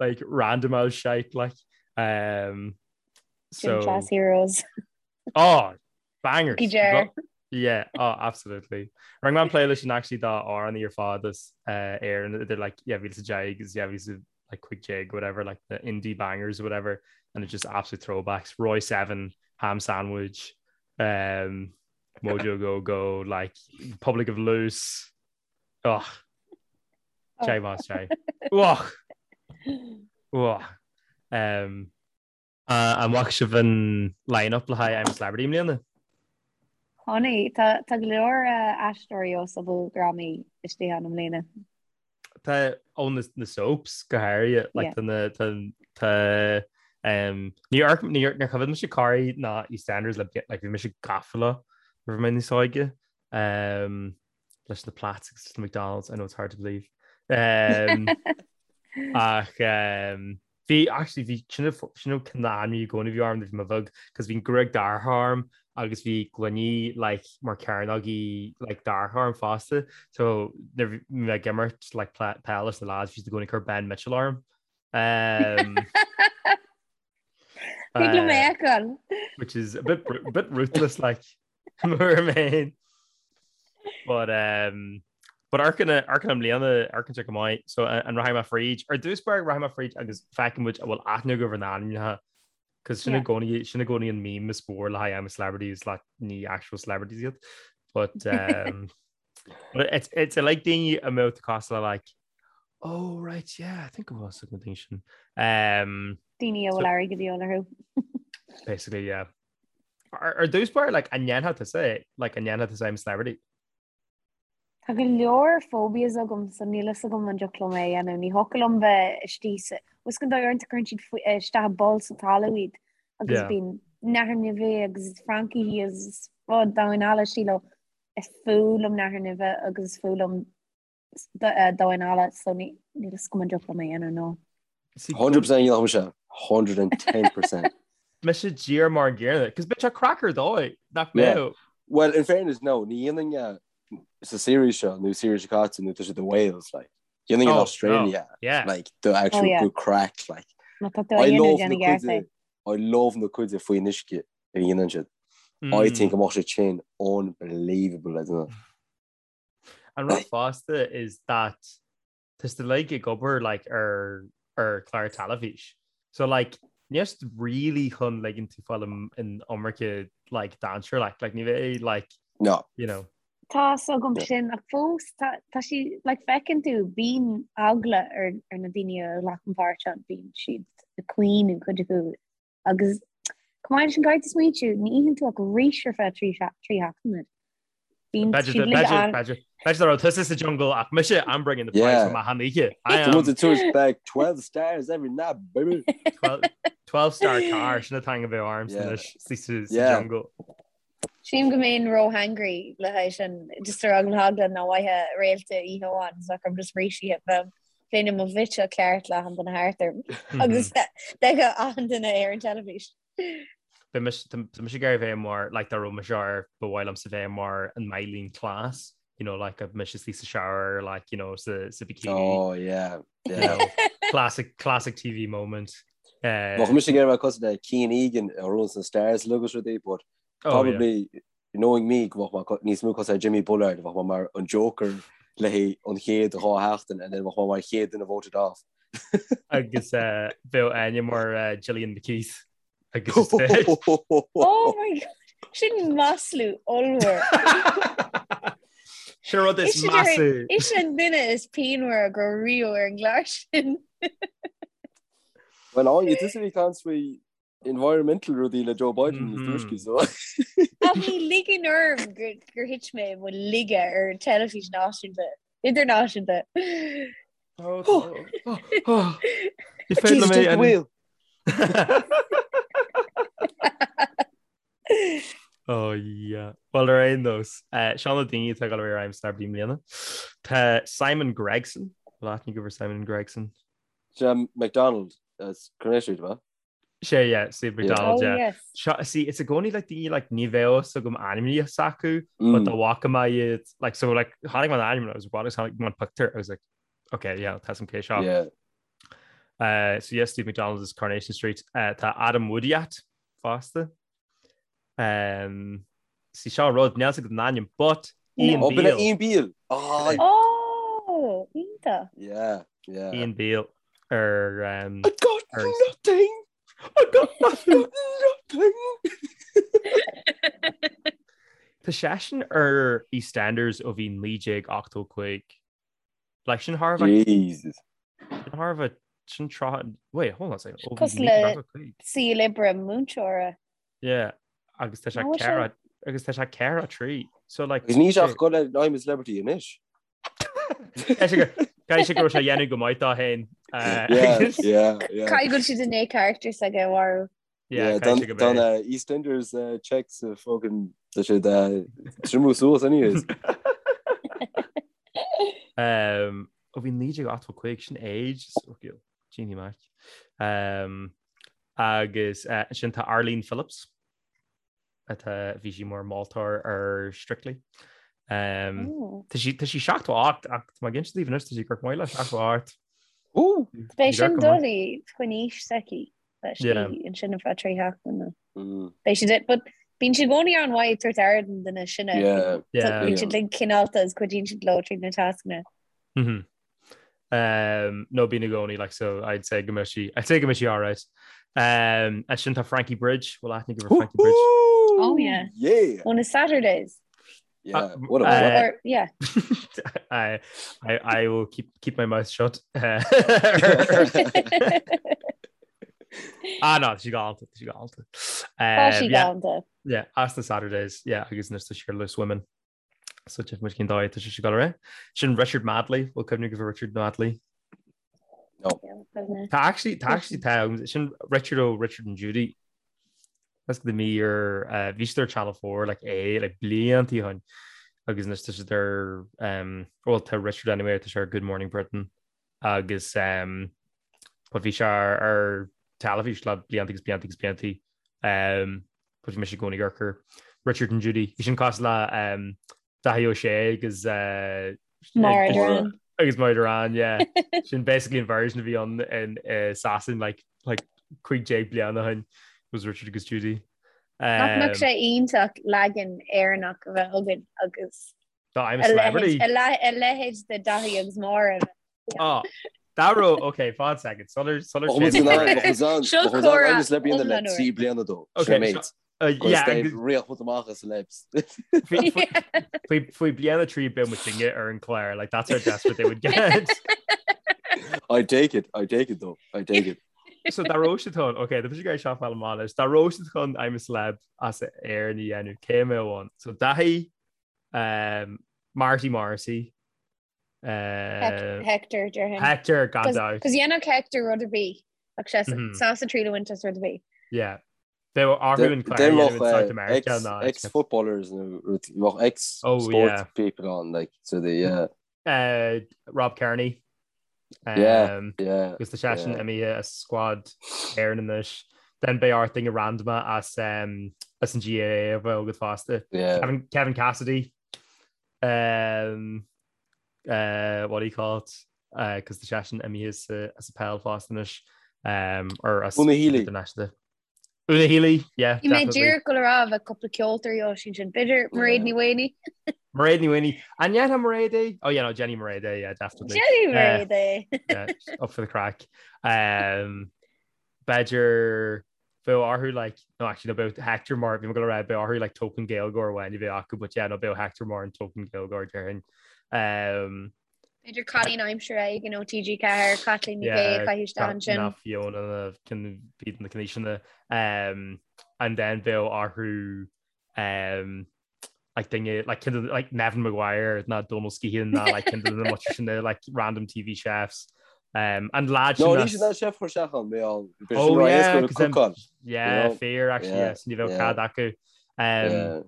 like random old shite like um so Gym Class Heroes. Oh, bangers. Cookie jar. Yeah, oh, absolutely. Rinne mé an playlist sin actually d'amhráin ar fad as uh, Éirinn idir like yeah, 2010 agus yeah, 2015 whatever like the indie bangers or whatever and it's just absolute throwbacks. Roy 7, Ham Sandwich, um, Mojo Go Go, like Republic of Loose. Oh. Jai mas jai. Oh. Oh. Um, An bhfaca sibh an line-up le haghaidh I'm a Celebrity i mbliana? Funny, tá tá go leor aisteoirí ó soap-drámaí istigh ann i mbliana. Tá ó na na soaps go háirithe like tá na tá tá um, ní ar ní ar níor choimhéad mise Corrie ná EastEnders le like bhí mise gafa leo nuair a bhí mé níos óige um, leis na plaids agus na McDonald's I know it's hard to believe. Um, ach um, Bhí, actually, bhí, sin sin an cineál ainmní i gcónaí a bhí orm nuair a bhí mé bheag, cos bhí an gruaig dorcha orm agus bhí gloiní like mar cearnógaí like dorcha orm fosta, so nuair bhí mé ag imirt like peil leis na lads, bhí siad i gcónaí ag cur Ben Mitchell orm. Um, Thig liom é a fheiceáil. Which is a bit, a bit ruthless like. Mar mé. But um, but amharcann amharcann i mbliana amharcann sé go maith so an rachaidh mé fríd ar dtús báire rachaidh mé fríd agus feicfidh muid an bhfuil aithne agaibh ar na hainmneacha cos sin i gcónaí sin i gcónaí an meme is mór le haghaidh I'm a Celebrity is like ní actual celebrities iad but um, but it's it's like daoine a mbeadh tú cosúil le like oh right yeah I think it was na daoine sin um, Daoine a bhfuil airgead de dhíobháil orthu. basically yeah Ar dtús báire, like, an ndéanfadh tusa é? Like, an ndéanfadh tusa I'm a Celebrity? Tá go leor phobias agam so níl fhios agam an dtiocfadh liom é a dhéanamh. Ní thiocfadh liom bheith istigh sa... Bhfuil fhios agat an dóigh uaireanta cuireann siad faoi- isteach i bpoll sa talamh iad agus Yeah. bíonn nathair nimhe agus francaigh agus rud domhain alla istigh leo. Is fuath liom nathair nimhe agus is fuath liom domhain alla so níl fhios agam an dtiocfadh liom é a dhéanamh no. 100% dhéanfadh mise 110%. Mise díreach mar an gcéanna, cos bheadh sé craic ar dóigh, nach mbeadh? Well, in fairness, no, ní dhéanfainn é sa series seo nó series seo caite nó tá siad i Wales, like. Dhéanfainn in Australia, yeah. like, the actual oh, yeah. good craic, like. Má tá tú á dhéanamh déan i gceart é. I love na cuide faoin uisce a dhéanann siad. I think go mbeadh sé sin unbelievable, I don't know. An rud fosta is that tá siad uilig ag obair like ar ar chlár teilifís. So like níl siad really chun ligean tú fáil in iomarca like dainséar like like ní bheidh like No. you know. Tá fhios agam sin ach fós tá tá sí like feiceann tú bíonn eagla ar ar na daoine a ghlacann páirt ann bíonn siad ag caoineadh cuid acu Agus chomh maith leis sin caithfidh tú smaointiú, ní itheann tú ach rís ar feadh trí seachtaine. Bíonn siad uilig an. B'fhéidir dá raibh tusa sa jungle ach mise, I'm bringing the prize home achan oíche. I am. Tá muid ag back 12 stars every night, baby. 12 star car, sin atá ag bheith orm sa jungle. Sílim go mbeinn ró-hangry le haghaidh sin, just ar eagla na heagla nach bhfaighfeá réalta oíche amháin, so bheadh orm just rís a ithe. Bheinn i mo bhitch ceart le achan duine thart orm agus d'fheicfeadh achan duine ar an teilifís. Bhí mise tá mise ag iarraidh bheith mar like dá raibh mise ar ba mhaith liomsa bheith mar an Myleene Klass, you know, like a mise istigh sa shower, like, you know, sa, sa bikini. Oh, yeah, yeah. You know, classic, classic TV moment. Uh, Bheadh mise ag iarraidh bheith cosúil le Kian Egan a runs na stars agus rudaí, but oh, probably yeah. knowing me go mbeadh mé níos mó cosúil le Jimmy Bullard, bheadh mé mar an Joker le haghaidh an chéad dá sheachtain and then bheadh mé mar chéad duine voted off. Agus uh, bheadh Áine mar uh, Gillian McKeith. Agus is dead. Oh my God! Sin maslú ollmhór. Sin rud is measa. Is an duine is pianmhaire go raibh riamh ar an gclár sin. Well, Áine, tusa a bhí ag caint faoi environmental rudaí le Joe Biden níos túisce, so. Ach ní ligeann orm gur thit mé i mo laige ar an teilifís náisiúnta, idirnáisiúnta. Ní féidir liom é a wheel. Oh yeah. Well ar aon nós, seo na daoine atá ag dul ar I'm a Celebrity i mbliana. Tá Simon Gregson, bhfuil aithne agaibh ar Simon Gregson? Sé McDonald as Coronation Street, ba? Sé yeah, Steve McDonald, oh, yeah. Yes. Seo, see, it's i gcónaí like daoine like ní bheadh fhios agam ainmneacha s'acu, mm. but dá bhfaca mé iad like so like chonaic mé an ainm I was what is chonaic mé an picture I was like okay yeah tá some cé seo. Yeah. Uh, so yes, Steve McDonald is Coronation Street. Uh, tá Adam Woodyatt fosta. Um, see seo rud níl fhios agam an ainm, but Ian oh, Beale. Ian Beale. Oh, oh iontach. Yeah, yeah. Ian Beale ar um, I got ar... nothing. I got nothing. nothing. Tá seisean ar EastEnders ó bhí 1985. Like sin thar Jesus. Sin thar bheith sin tráth wait hold on a second. Cosúil le saol oibre múinteora. Yeah, agus tá sé ceithre. agus tá sé 4 3. So like Agus níl sé ach ag dul ar I'm a Celebrity anois. Caithfidh sé go raibh sé ag déanamh go maith dó féin. Yeah, yeah, yeah. Caithfidh go bhfuil siad i ndiaidh character s'aige a mharú. Yeah, caithfidh sé go Don EastEnders checks fucking tá siad triomú suas anyways. Um, ó bhí 1985 sin age Jeannie Mac. Um, agus uh, sin tá Arlene Phillips atá bhí sí mar moltóir ar Strictly. Um, tá sí tá sí 78 ach má gin daoibh anois tá sí ag amharc maith le 78. Beidh sin doiligh faoin aois s'aici leis ansin ar feadh 3 sheachtaine. Beidh siad but bíonn siad i gcónaí an-mhaith ag tabhairt aire don duine sin. Bíonn siad like cineálta agus cuidíonn siad leo tríd na tascanna. Um, no bíonn i gcónaí like so I'd say go mbeidh sí I'd say go mbeidh sí alright. Um, ansin tá Frankie Bridge bhfuil aithne agaibh ar Frankie Bridge. Oh yeah. Yeah. On a Saturdays. Yeah, uh, what a uh, or, yeah. I, I I will keep keep my mouth shut. ah no, sí galánta, sí galánta. Um, sí galánta. Yeah, as the Saturdays, yeah, agus anois tá sí ar Loose Women. So tchífidh muid cén dóigh atá sé ag dul ar aghaidh. Sin Richard Madeley, bhfuil cuimhne agaibh ar Richard Madeley? No. Tá actually tá actually tá sin Richard ó Richard and Judy. That's the me ar uh, bhí siad ar Channel 4 like é like blianta ó shin agus anois tá siad ar um, well tá Richard anyway tá sé ar Good Morning Britain agus um, but bhí sé ar, ar teilifís le blianta agus blianta agus blianta um, but bhí mise i gcónaí ag amharc ar Richard and Judy. Bhí sin cosúil le um, Dáithí Ó Sé agus uh, Maura Derrane. agus Maura Derrane, yeah. Sin basically an version a bhí ann in uh, Sasain like, like 15 bliain ó shin was Richard agus Judy. Nach mbeadh sé iontach leagan Éireannach a bheith againn agus Dá I'm a celebrity. a leithéid de Dáithí agus Máire. Oh, dá raibh okay, fan second. Sular sular Seo comhrá I'm a celebrity le iomlán úr. 3 bliana dó. Okay, mate. Yeah, agus- Riach put amach as celebs. Faoi faoi bliain a 3 beidh muidinne ar an chlár, like that's how desperate they would get. I take it, I take it though, I take it. So dá raibh siad chun, okay, tá mise ag iarraidh seo a fháil amach anois, dá raibh siad chun I'm a celeb as Éirinn a dhéanamh, cé a mbeadh ann? So Dáithí, um, Marty Morrissey, uh, Hector déarfainn. Hector gan dabht. Cos dhéanfadh Hector rud ar bith ach sé sásta triail a bhaint as rud ar bith. Yeah. Bheadh orthu an clár a dhéanamh in South America ná. Ex-footballers nó bheadh ex-sport people on like so the yeah. Uh, Rob Kearney. Yeah, yeah. Agus tá seisean imithe as squad Éireann anois. Then beidh ort duine random as um, as an GAA a bheith agat fosta. Yeah. Kevin, Kevin Cassidy. Um, uh, what do you call it? Uh, cos tá seisean imithe as, uh, as an bpeil fosta anois. Um, or as Una Healy. International. Una Healy, yeah, Bhí mé definitely. díreach ag dul a rá bheadh cúpla ceoltóirí ó sin sin. B'fhéidir Mairéad Ní Mhaonaigh. Mairéad Ní Mhaonaigh. An ndéanfadh Mairéad é? Oh yeah, no, Jenny Mairéad é, yeah, definitely. Jenny Mairéad é. Yeah, up for the craic. Um, b'fhéidir bheadh orthu like, no actually no bheadh Hector mar bhí mé ag dul a rá bheadh orthu like token Gaeilgeoir amháin a bheith acu, but yeah, no bheadh Hector mar an token Gaeilgeoir déarfainn. Um, B'fhéidir cailín aimsire éigin ó TG4, Caitlín Ní Shé a chaitheamh isteach ansin. Ná Fiona na cinn bíd na cinn um, and then bheadh orthu um, like duine like kind of like Neven Maguire ná Donal Skehan ná like kind of na much sin na like random TV chefs. Um, and lad No, ní sin an chef chuir isteach ann, mé all. Oh yeah, 'cause then- yeah, fair actually, yes, ní bheadh cead acu. Um, Yeah.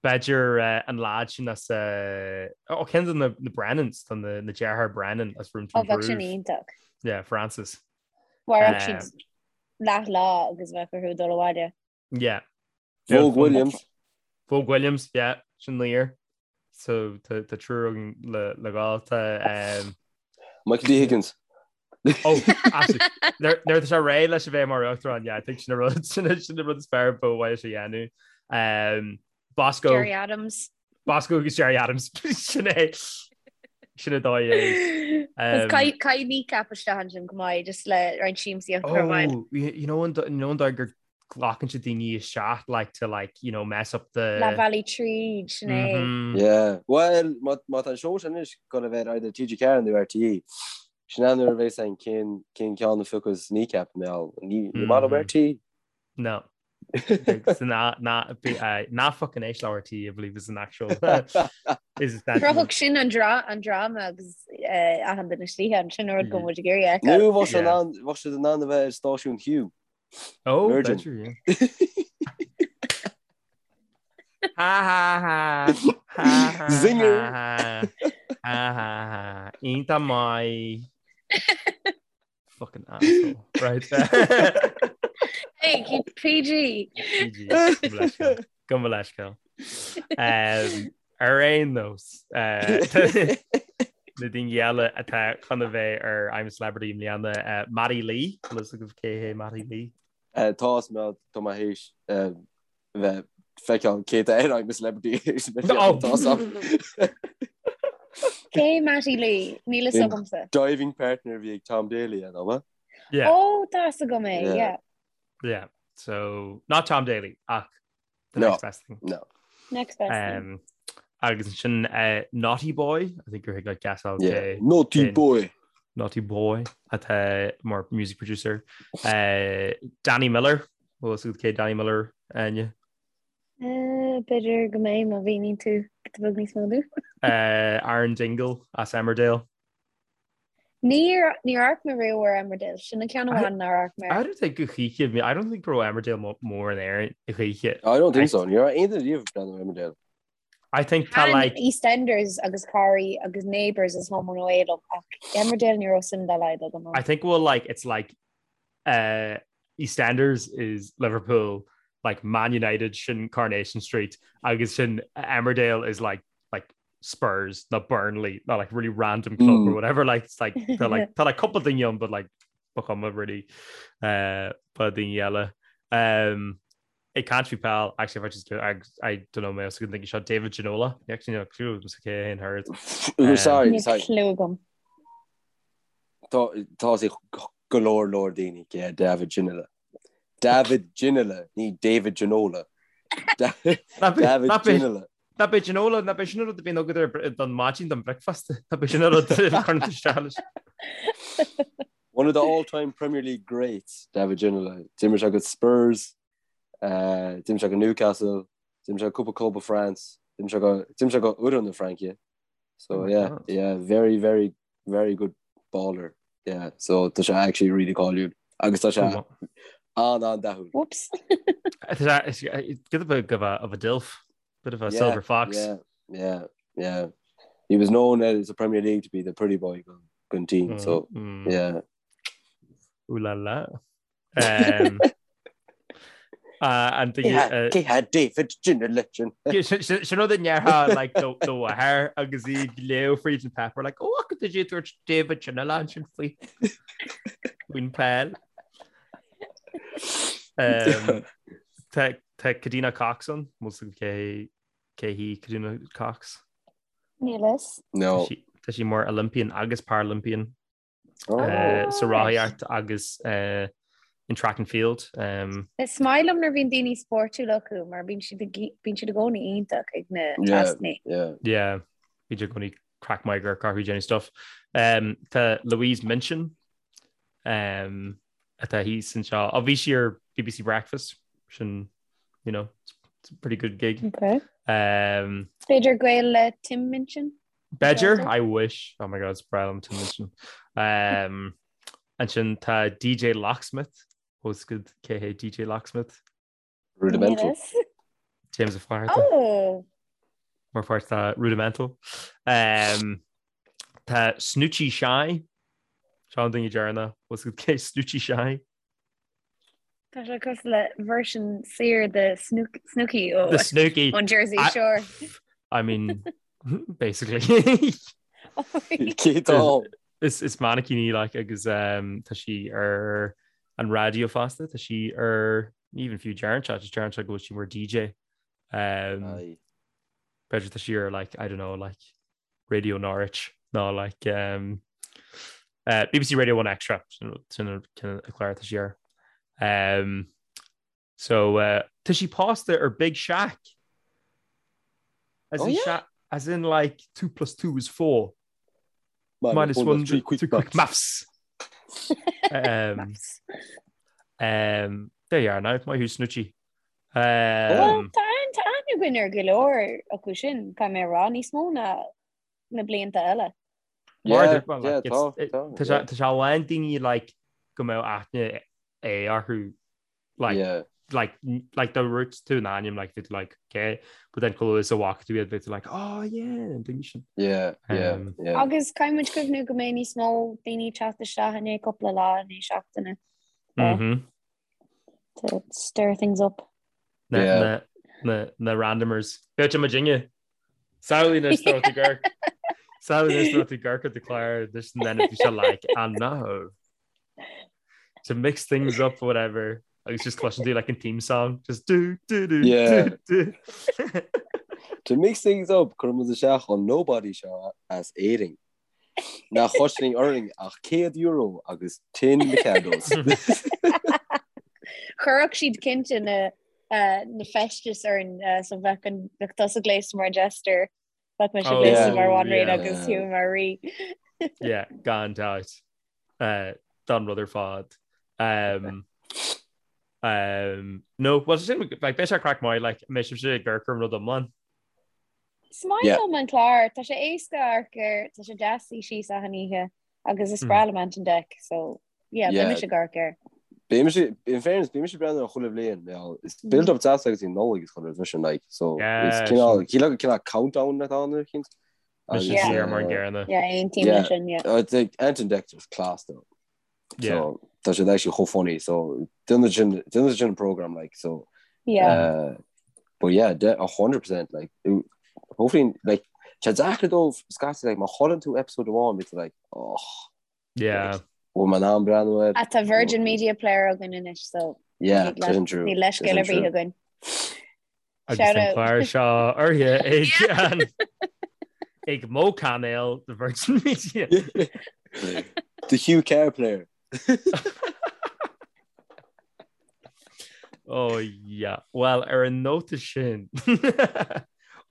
B'fhéidir an leaid sin as ó ceann de na Brennans tá na deartháir Brennan as Room to Ó bheadh sin Improve. iontach. Yeah, Francis. Mhairfeadh siad leath lá agus bheadh orthu dul abhaile. Yeah. Vogue Williams. Vogue Williams, yeah, sin laoch. So tá triúr againn le le gabháil tá um, Michael D. Higgins. Oh, absolutely. Nuair atá sé réidh leis a bheith mar uachtarán, yeah, I think sin an rud sin an rud is fearr ba mhaith leis a dhéanamh. Um, Bosco Gerry Adams. Bosco agus Gerry Adams sin é sin an dóigh é. Um, Caithfidh Kneecap isteach ansin go maith just le roinnt siamsaíocht a chur Oh, you know an you know an dóigh gur glacann siad daoine isteach like to like you know mess up the Leath bhealaigh tríd sin é. Mm -hmm. Yeah. Well, má tá an seó sin anois ag dul a bheith either TG4 nó RTÉ. Sin an uair a bheas ann cén cén ceann a phiocfas Kneecap mé all. Ní ní maith liom RTÉ. No. Ná fucking éist le RTÉ, I believe is an actual is that Chruthódh sin an dráma agus achan duine istigh ann sin an rud go bhfuil muid ag iarraidh a fheiceáil. Nó bheadh sé in ann bheadh siad in ann a bheith ar stáisiún Hugh. Oh, Virgin. b'fhéidir, yeah. Ha ha ha. Ha ha Zinger. ha ha ha ha. Iontach maith. Fucking asshole. Right. Hey, keep PG. PG. Gabh mo leithscéal. Um, ar aon nós uh, na daoine eile atá chun a bheith ar I'm a Celebrity i mbliana uh, Matty Lee Bhfuil fhios agaibh cé hé Matty Lee? Uh, tá fhios agam tá mé théis uh, bheith feiceáil cé tá ar I'm a Celebrity Oh. Tá fhios agam. Cé Matty Lee? Níl fhios agamsa. Diving partner a bhí ag Tom Daley an ea? Yeah. Ó, tá fhios agam é, Yeah. yeah. Yeah. So not Tom Daley ach the No. next best thing. No. Next best thing. Um, agus ansin uh, Naughty Boy, I think gur thig leat guessáil Yeah. cé Naughty cén- boy. Naughty Boy atá mar music producer. Uh, Danny Miller, bhfuil fhios agat cé Danny Miller Áine? Uh, B'fhéidir go mbeidh má mhíníonn tú giota beag níos mó domh. Uh, Aaron Dingle as Emmerdale. Níor níor amharc mé riamh ar Emmerdale, sin an ceann amháin nár amharc mé I air. don't think go choíche, I don't think go raibh Emmerdale mór in Éirinn a choíche. I don't think so. Ní raibh aon duine riamh ag breathnú ar Emmerdale. I think tá Thaitin like EastEnders agus Corrie agus Neighbours is Home and Away liom ach Emmerdale ní raibh suim dá laghad agam I ann. think well like it's like uh, EastEnders is Liverpool like Man United sin Coronation Street agus sin Emmerdale is like like Spurs nó Burnley nó like really random club or Mm. whatever like it's like tá like tá like couple daoine ann but like ba chuma really uh, ba daoine eile. Um, Ag caint faoi peil, actually if I just do I, I don't know mé os go dtuigfidh seo David Ginola actually no clue agam cé hé an herd. Ooh, sorry, Níl sorry. clue agam. Tá tá sé go leor leor daoine cé hé David Ginola. David Ginola, ní David Ginola. Da- David Ginola. Ná bé Ginola, ná bé sin an rud a bhíonn agat ar don maidin don bricfeasta, ná bé sin an rud a chuireann tú isteach leis. One of the all-time Premier League greats, David Ginola. D'imir sé go Spurs, uh, d'imir sé go Newcastle, d'imir sé go cúpla club i France, d'imir sé go d'imir sé go fhoireann na Fraince. So Oh my yeah, God. yeah, very, very, very good baller. Yeah, so tá sé actually really cáiliúil. Agus tá sé an-an-dathúil. Whoops. Giota beag of a, of a dilf, bit of a Yeah, silver fox. Yeah, yeah, yeah. He was known as the Premier League to be the pretty boy gun, gun team. So Mm, mm. yeah, Ooh la la. Um, uh, and the, uh, Cé hé David Ginola sin. Sin rud a ndéarfá like do do mháthair agus í ag léamh fríd an páipéar like oh did you dúirt David Ginola ansin faoi faoin peil. Um, Tá tá Kadeena Cox ann, bhfuil fhios agaibh cé cé hí Kadeena Cox. Níl fhios. No. Tá sí tá sí mar Olympian agus Paralympian Oh. uh, sa Oh, right. rothaíocht agus uh, in track and field. Um, Is maith liom nuair a bhíonn daoine spórtúil acu mar bíonn siad ag- bíonn siad i gcónaí iontach ag na Yeah. tascanna. Yeah. yeah, bíonn siad i gcónaí craic maith gur carthú déanamh stuff. Um, tá Louise Minchin um, atá thíos anseo. Ó bhí sí ar BBC Breakfast sin you know, it's, it's a pretty good gig. Okay. Um, B'fhéidir gaol le Tim Minchin? B'fhéidir, I wish. Oh my God, it's breá liom Tim Minchin. Um, ansin tá DJ Locksmith. Bhfuil fhios agat cé hé DJ Locksmith. Rudimental. Níl fhios. James Ó Flatharta. Oh! Mar pháirt de Rudimental. Um, tá Snoochie Shy. Seo an duine deireanach. Bhfuil fhios agat cé Snoochie Shy. Tá sé cosúil le version saor de Snook, Snooki ó The Snooki. on Jersey I- Shore. I mean, basically. Cé tá? Is, is mannequin í like agus um, tá sí ar an raidió fosta, tá sí ar even fiú deireann sé, just deireann sé go bhfuil sí mar DJ. Um, Aye. B'fhéidir tá sí ar like, I don't know, like Radio Norwich nó like um, uh, BBC Radio 1 Extra sin sin an cinn a chlár tá sí ar. Um, so uh, tá sí pósta ar Big Shaq. As Oh, in yeah? Shaq, as in like 2 plus 2 is 4. Minus 1, 3 2 quick maths. Um, Maths. um, there you are now, maith thú Snoochie. Well, tá tá aithne againn ar go leor acu sin, caithfidh mé a rá, níos mó ná na blianta eile. Mar Yeah, well, yeah, like, tá, it's- tá, tá sé- tá sé a lán daoine like go mbeadh aithne é orthu like Yeah. like like dá ndúirt tú an ainm like bheadh tú like okay but then chomh luath is a bhfaca tú iad bheadh tú like oh yeah an duine sin. Yeah, yeah, Um, yeah. Agus caithfidh muid cuimhniú go mbeidh níos mó daoine ag teacht isteach i ndiaidh cúpla lá i ndiaidh seachtaine Mhm. to stir things up. Na Yeah. na na na randomers. B'fhéidir muidinne. Samhlaigh anois dá mbeadh tú ag amharc. Samhlaigh anois dá mbeadh tú ag amharc ar do chlár this and then if you like I know. To mix things up whatever. Agus just cloiseann tú like an theme song just do do do Yeah. do do. To mix things up, cuireann muid isteach an nobody seo as Éirinn. Nach chosnaíonn orainn ach €100 agus tin Mikados. Chuirfeadh siad cinnte na na feistis orainn so bheadh an bheadh tusa gléasta mar jester, bheadh mise Oh, gléasta mar bhanríon yeah. agus Hugh mar rí. Yeah, gan dabht. Uh, don rud ar fad. Um, um, no, well, sin, like, beidh sé craic maith, like, mbeidh sibhse ag amharc ar an rud iomlán. Is maith liom an clár, tá sé éasca amharc air, tá sé deas suí síos achan oíche agus is breá liom Ant and Dec, so yeah, beidh mise ag amharc air. Beidh mise, in fairness, beidh mise ag breathnú air chuile bhliain, you is build up deas agus í Nollaig is chuile rud sin, like, so is cineál, cineál cineál countdown atá ann ar chinnt. Mise siar mar an gcéanna. Yeah, aontaím leis sin, yeah. Ant and Dec just class though. So tá siad actually chomh funny so déanann sin déanann sin an program like so Yeah. uh, but yeah de 100% like hopefully like tá deacair dóibh scaití like má chailleann tú episode amháin bíonn tú like oh Yeah. bhfuil mé in ann breathnú air Ach tá Virgin Media Player againn anois so yeah tá sin true níl leithscéal ar bith againn. Agus an clár seo urraithe ag an ag mo cainéal the Virgin Media. The Hugh Carr player. Oh yeah. Well ar an nóta sin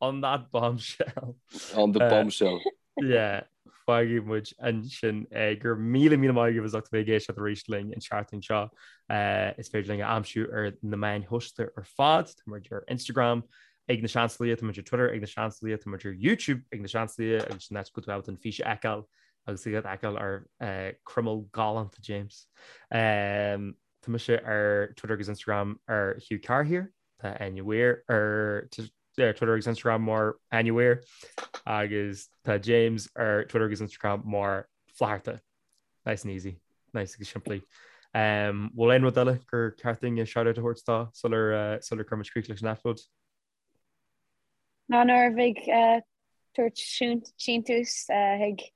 on that bombshell. On the uh, bombshell. Yeah. Fágfaidh muid ansin é. Go raibh míle míle maith agaibh as ucht a bheith ag éisteacht arís linn an tseachtain seo. Is féidir linn a aimsiú ar na meáin shóisialta ar fad. Tá muid ar Instagram ag Na Seansálaithe, tá muid ar Twitter ag Na Seansálaithe, tá muid ar YouTube ag Na Seansálaithe agus sin áit go bhfuil tú ábalta an fís a fheiceáil agus iad a fheiceáil ar croimeall galánta James. Tá mise ar Twitter agus Instagram ar Hugh Carr here. Tá Áine Weir ar Twitter agus Instagram mar Áine Weir agus tá James ar Twitter agus Instagram mar Flatharta. Nice and easy, nice agus simplí. Um, bhfuil aon rud eile gur ceart dúinn shout-out a thabhairt dó sular uh, sular cuirimid críoch leis an eipeasóid? Ná nuair a bheidh uh, tabhairt síntiús uh, chuig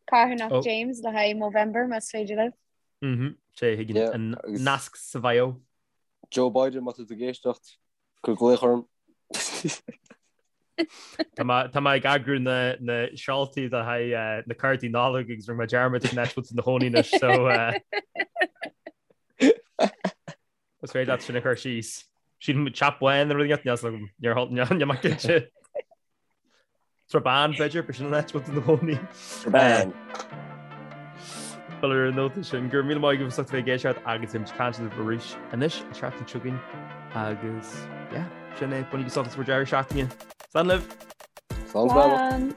carthanacht oh. James le haghaidh Movember más féidir libh. Mhm, sé chuig an nasc sa bhio. Joe Biden má tá tú ag éisteacht, cuir glaoch orm. Tá mé ag eagrú na seoltaí le haghaidh na cártaí Nollag agus rinne mé dearmad cén áit a bhfuil tú ina chónaí anois so is féidir leat sin a chur síos. Sílim Teach Bán nó rud éigin níl mé cinnte. Srath Bán b'fhéidir, b'shin an áit a bhfuil tú ina chónaí. Srath Bán. Bhuel ar an nóta sin, go raibh míle maith agaibh as ucht a bheith ag éisteacht agus beidh muid ag caint libh arís anois an tseachtain seo chugainn agus yeah, sin é, bainigí sult as bhur deireadh seachtaine. Slán libh! Slán. Slán.